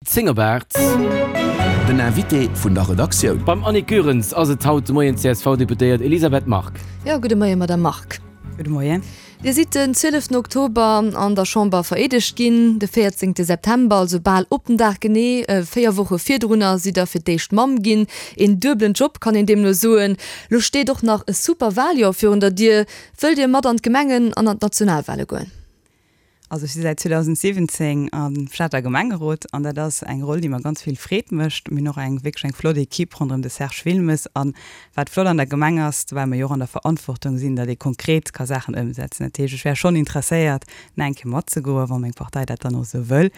10 op 8. Den Invité vun der Redaktioun. Beim Annick Goerens ass et haut de Moien d'CSV-Deputéiert Elisabeth Margue. Jo, gudde Moien, Madamm Margue. Gudde Moien. Dir sidd den 12 Oktober an der Chamber vereedegt ginn. De 14 September, also bal op den Dag genee 4 Woche virdrunner, sidd Der fir d'éischt Mamm ginn. Een duebelen Job, kann een deemno soen. Lo steet och nach e super Waljoer virun der Dier. Wëllt Dir mat an d'Gemengen an an d'Nationalwale goen? Also ech si säit 2017 am Stater Gemengerot an dat ass eng Roll, déi mer ganz vill Freed mécht. Mir hunn och eng wierklech eng flott Equipe ronderëm de Serge Wilmes. An wat flott an der Gemeng ass, well mer jo och an der Verantwortung sinn, datt ee konkret ka Saachen ëmsetzen. Dat heescht, ech wär schonn interesséiert, nach eng Kéier matzegoen, wa meng Partei dat dann och esou wëll.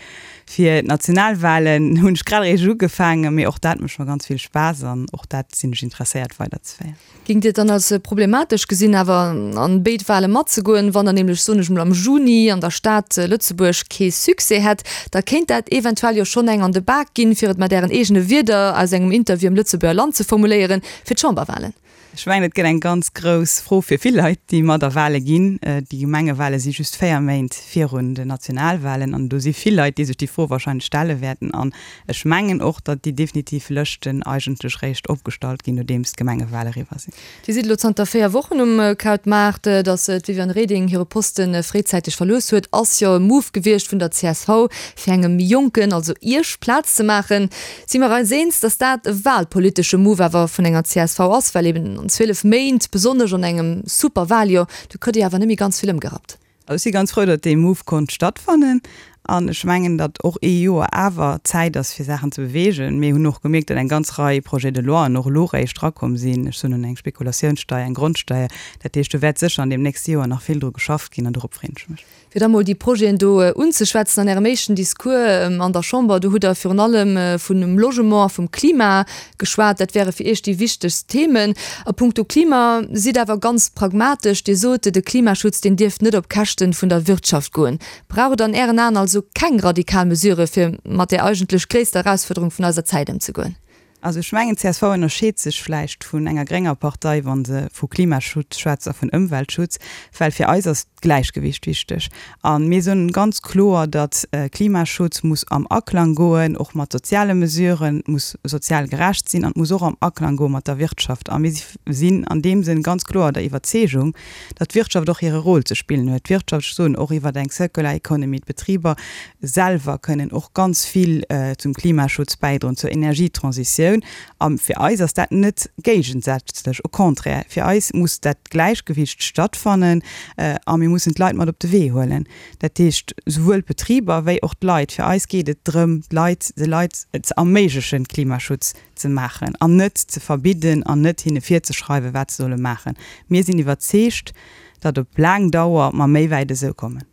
Fir d'Nationalwahlen hunn ech grad eréischt ugefaangen, mee och dat mécht mer ganz vill Spaass an och dat sinn ech interesséiert weiderzeféieren. Géingt Dir et dann als problematesch gesinn, awer an béid Wahle matzegoen? Wann der nämlech, soen ech mol, am Juni an der Stad Lëtzebuerg kee Succès hätt, da kéint dat eventuell jo schonn eng an de Bak ginn, fir et mat Ären eegene Wierder aus engem Interview am Lëtzebuerger Land ze formuléieren, fir d'Chamberwahlen. Ech mengen, et gëtt eng ganz grouss Fro fir vill Leit, déi mat a Wahle ginn. Déi Gemengewahle si just 4 Méint virun den Nationalwahlen an do si vill Leit, déi sech déi Fro wahrscheinlech stelle wäerten. An Ech mengen och, datt déi definitiv Lëschten eigentlech réischt opgestallt ginn, nodeems d'Gemengewale eriwwer sinn. Dir sidd elo zanter 4 Wochen um Krautmaart. Datt d'Viviane Reding hire Poste fréizäiteg verlooss huet, ass jo e Move gewiescht vun der csv, fir engem Jonken, also Iech, Plaz ze maachen. Si mer eis eens, datt dat e walpolitesche Move awer vun enger csv ass, well eben an 12 Méint, besonnesch an engem Super-Waljoer, do kritt Dir awer net méi ganz vill ëmgerappt. Also ech si ganz frou, datt dee Move konnt stattfannen. An ech mengen, datt och ee Joer awer Zäit ass, fir Saachen ze beweegen. Mir hunn och gemierkt, datt eng ganz Rei Projets de loien och elo réischt erakomm sinn. Ech soen un eng Spekulatiounssteier, eng Grondsteier. Dat heescht, do wäert sécher an deem nächste Joer nach vill dru geschafft ginn an dorop freen ech mech. Fir da mol déi Projeten do unzeschwätzen, an Ärem éischten Discours an der Chamber, do hutt Der virun allem vun Logement a vum Klima geschwat. Dat wäre fir Iech déi wichtegst Themen. A puncto Klima sidd awer ganz pragmatesch. Dir sot, de Klimaschutz, deen dierft net op Käschte vun der Wirtschaft goen. Brauch et an Ären Aen also keng radikal Mesurë fir mat där eigentlech gréisster Erausfuerderung vun eiser Zäit ëmzegoen? Also ech mengen, csv ënnerscheet sech vläicht vun enger grénger Partei, wa se vu Klimaschutz schwätzt a vun Ëmweltschutz, well fir eis ass d'Gläichgewicht wichteg. A mir soen ganz kloer, datt Klimaschutz muss am Aklang goen och mat soziale Mesuren, muss sozial gerecht sinn an muss och am Aklang goe mat der Wirtschaft. A mir sinn an deem Sënn ganz kloer der Iwwerzeegung, datt d'Wirtschaft och hire Rôle ze spillen huet. D'Wirtschaft, ech soen och iwwer eng Circular Economy, d'Betriber selwer kënnen och ganz vill zum Klimaschutz bäidroen, zur Energietransitioun. A fir eis ass dat net géigesätzlech, au contraire, fir eis muss dat Gläichgewicht stattfannen a mir mussen d'Leit mat op de Wee huelen. Dat heescht, souwuel d'Betriber wéi och d'Leit. Fir eis geet et drëm, d'Leit, de Leit ze erméiglechen, Klimaschutz ze maachen an net ze verbidden an net hinne virzeschreiwen, wat se solle maachen. Mir sinn iwwerzeegt, datt op laang Dauer mer méi wäit esou kommen.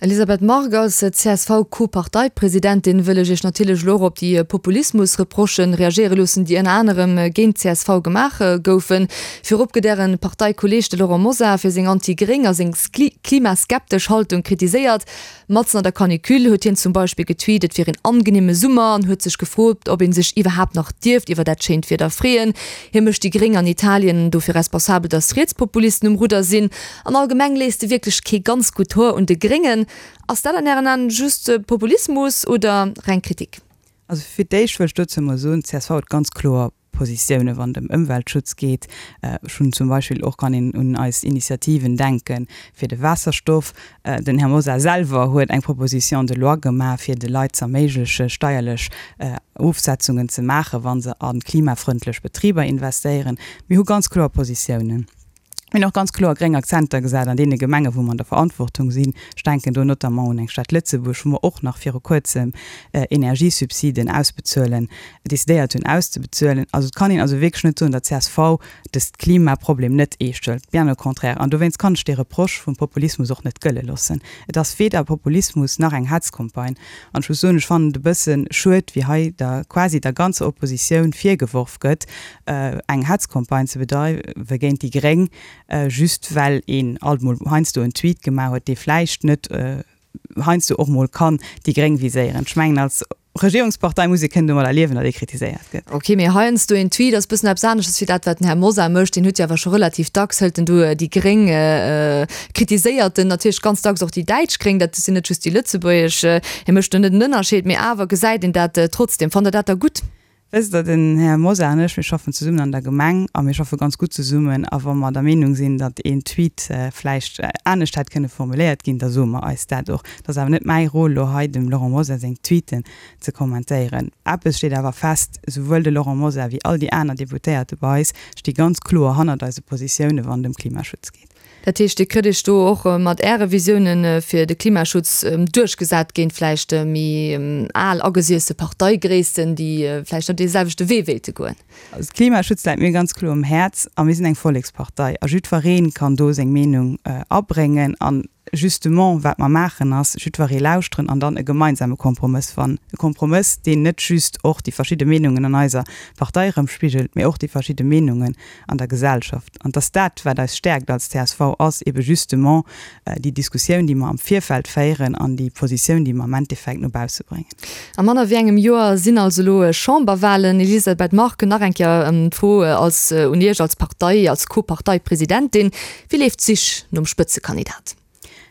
Elisabeth Margue, Als CSV-Co-Parteipresidentin wëll ech Iech natierlech elo och op déi Populismus-Reprochen reagéiere loossen, déi ënner anerem géint d'CSV gemaach goufen. Virop gëtt Äre Parteikolleeg, de Laurent Mosar, fir seng anti-gréng a seng klimaskeptesch Haltung kritiséiert. Matzen an der Canicule huet hien zum Beispill getweet, et wier een angenehme Summer an huet sech gefrot, ob ee sech iwwerhaapt nach dierft iwwer dat schéint Wieder freeën. Hie mécht déi Gréng an Italien dofir responsabel, datt Rietspopulisten um Rudder sinn. An allgemeng léisst e wierklech kee ganz gutt Hoer un de Gréngen. Ass dat an Ären Aen just Populismus oder reng Kritik? Also fir d'éischt wëll ech dozou emol soen, csv huet ganz kloer Positiounen, wann et ëm Ëmweltschutz geet. Ech hunn zum Beispill och, kann een un eis Initiativen denke fir de Waasserstoff. Den Här Mosar selwer huet eng Proposition de loi gemaach, fir de Leit z'erméigleche steierlech Ofsetzungen ze maachen, wa se a klimafrëndlech Betriber investéieren. Mir hu ganz kloer Positiounen. Mir hunn och ganz kloer gréng Akzenter gesat an deene Gemengen, wou mer an der Verantwortung sinn. Ech denken do notamment un eng Stad Lëtzebuerg, wou mer och nach viru Kuerzem Energiesubsiden ausbezuelen, decidéiert hunn auszebezuelen. Also et kann een also wierklech net soen, datt csv dëst Klimaproblem net eescht hëlt. Bien au contraire. An dowéinst kann ech dee Reproche vum Populismus och net gëlle loossen. Et ass weder Populismus nach eng Hetzcampagne. An ech muss soen, ech fannen et e bësse schued, wéi hei der quasi der ganzer Oppositioun virgeworf gëtt, eng Hetzcampagne ze bedreiwe géint déi Gréng, just well een alt mol heiansdo en Tweet gemaach huet, dee vläicht net heiansdo och mol kann déi Gréng viséieren. Ech mengen, als. Regierungspartei muss ee kënnen domadder liewen, datt ee kritiséiert gëtt. Ok, mee heiansdo een Tweet ass bëssen eppes aneschters wéi dat, wat den Här Mosar mécht. Deen huet jo awer scho relativ dacks, hëlt en do déi Gréng, kritiséiert en natierlech ganz dacks och déi däitsch Gréng, dat sinn net just déi lëtzebuergesch. Hie mécht do net en Ënnerscheed, mee awer gesäit een dat trotzdem. Fannt Der dat da gutt? Wësst Der, den Här Mosar an ech, mir schaffen zesummen an der Gemeng a mir schaffe ganz gutt zesummen. A wa mer der Meenung sinn, datt een Tweet vläicht anescht hätt kënne formuléiert ginn, da soe mer eis dat och. Et ass awer net mäi Rôle, elo hei dem Laurent Mosar seng Tweeten ze kommentéieren. Eppes steet awer fest, Souwuel de Laurent Mosar wéi all déi aner Deputéierte bei eis sti ganz kloer hannert eise Positioune wann et ëm Klimaschutz geet. Dat heescht, Dir kritt Iech do och mat Äre Visiounen fir de Klimaschutz duerchgesat géint vläicht méi al agesiesse Parteigréissten, déi vläicht net dee selwechte Wee wéilte goen? Also de Klimaschutz läit mir ganz kloer um Häerz a mir sinn eng Vollekspartei a jiddweree kann do seng Meenung abréngen. An justement wat mer maachen ass, jiddweree lauschteren an dann e gemeinsame Kompromëss fannen. E Kompromëss, deen net just och déi verschidde Meenungen an eiser Partei erëmspigelt, mee och déi verschidde Meenungen an der Gesellschaft. An dass dat, wat eis stäerkt als csv, ass ebe justement déi Diskussioun, déi mer am Virfeld féieren an déi Positioun, déi mer am Endeffekt no bausse bréngen. A manner wéi engem Joer sinn also elo Chamberwahlen. Elisabeth Margue, nach eng Kéier d'Fro als un Iech als Partei, als Co-Parteipresidentin, Wéi leeft d'Sich nom Spëtzekandidat?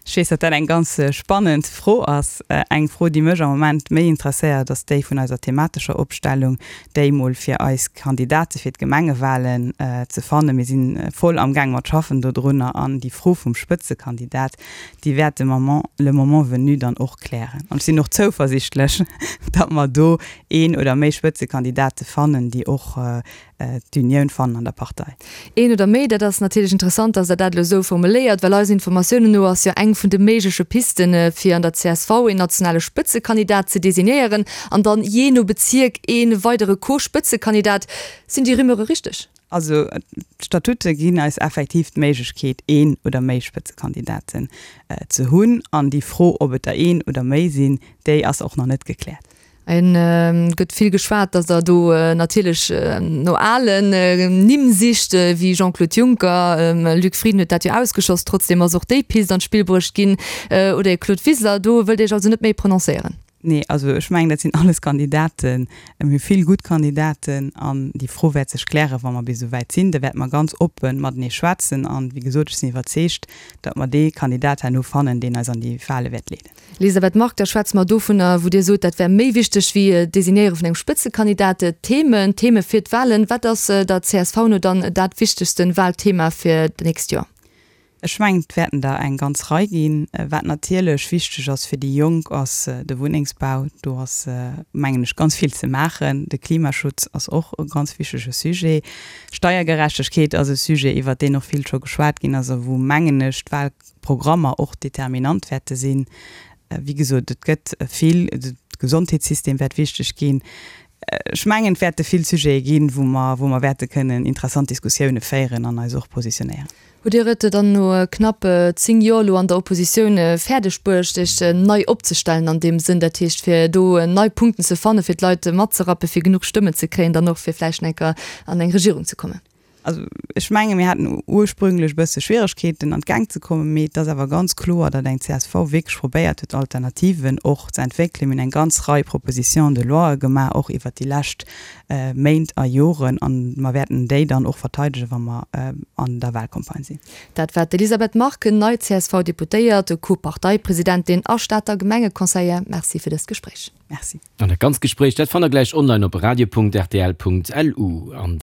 Ech weess, datt dat eng ganz spannend Fro ass. Eng Fro, déi mech am Moment méi interesséiert, ass déi vun eiser thematescher Opstellung, déi mol fir eis Kandidate fir d'Gemengewahlen ze fannen. Mir si voll amgaang mat schaffen dodrunner an déi Fro vum Spëtzekandidat, déi wäert de Moment, le moment venu dann och klären. An ech sinn och zouversichtlech, datt mer do een oder méi Spëtzekandidate fannen, déi och d'Unioun fannen an der Partei. Een oder méi, dat ass natierlech interessant, dass Der dat elo esou formuléiert, well eisen Informatiounen no ass jo eng vun de méigleche Pisten, fir an der csv een nationale Spëtzekandidat ze designéieren an dann jee no Bezierk ee weidere Co-Spëtzekandidat. Sinn déi Rumeure richteg? Also d'Statute ginn eis effektiv d'Méiglechkeet, een oder méi Spëtzekandidaten ze hunn. An déi Fro, ob et der een oder méi sinn, déi ass och nach net gekläert. Et gëtt vill geschwat, datt Der do natierlech no alen Nimm sicht, wéi Jean-Claude Juncker. Luc Frieden huet dat jo ausgeschloss. Trotzdeem ass och déi Pist an d'Spill bruecht ginn. Oder ee Claude Wiseler. Do wëllt Dir Iech also net méi prononcéieren? Nee, also ech mengen, dat sinn alles Kandidaten. Mir hu vill gutt Kandidaten an déi Fro wäert sech klären, wa mer bis esou wäit sinn. Da wäerte mer ganz oppe matenee schwätzen. An, wéi gesot, ech sinn iwwerzeegt, datt mer dee Kandidat herno fannen, deen eis an déi Wale wäert leeden. Elisabeth Margue, Da schwätze mer dovunner, wou Dir sot, dat wär méi wichteg wéi d'Designéiere vun engem Spëtzekandidat, d'Themen, d'Theme fir d'Wahlen. Wat ass der csv no dann dat wichtegste Wahlthema fir d'nächst Joer? Ech mengen, et wäerten der eng ganz Rei ginn. Wat natierlech wichteg ass fir déi Jonk, ass de Wunnengsbau. Do ass, mengen ech, ganz vill ze maachen. De Klimaschutz ass och e ganz wichtege Sujet. Steiergerechtegkeet ass e Sujet, iwwert deen och vill scho geschwat ginn ass a wou, mengen ech, d'Wahl, Programmer och determinant wäerte sinn. Wéi gesot, et gëtt vill, de Gesondheetssystem wäert wichteg ginn. Ech mengen, et wäerte vill Sujete ginn, wou mer, wou mer wäerte kënnen interessant Diskussioune féieren an eis och positionéieren. Hutt Dir et dann no knapp 10 Joer elo an der Oppositioun fäerdeg bruecht, Iech nei opzestellen an deem Sënn, dat heescht fir do nei Punkten ze fannen, fir d'Leit matzerappen, fir genuch Stëmmen ze kréien, dann och fir vläicht eng Kéier an eng Regierung ze kommen? Also ech menge mir haten ursprünglech e bësse Schwieregkeeten an d'Gäng ze kommen, mee et ass awer ganz kloer, datt eng csv wierklech probéiert huet Alternativen och ze entwéckelen. Mir hunn eng ganz Rei Propositions de loie gemaach, och iwwert déi lescht Méint a Joren, an mer wäerten déi dann och verteidegen, wa mer an der Wahlcampagne sinn. Dat war d'Elisabeth Margue, nei CSV-Deputéiert, Co-Parteipresidentin a Stater Gemengeconseillère. Merci fir dëst Gespréich. Merci. An dat ganzt Gespréich, dat fannt der gläich online op radio.rtl.lu. An.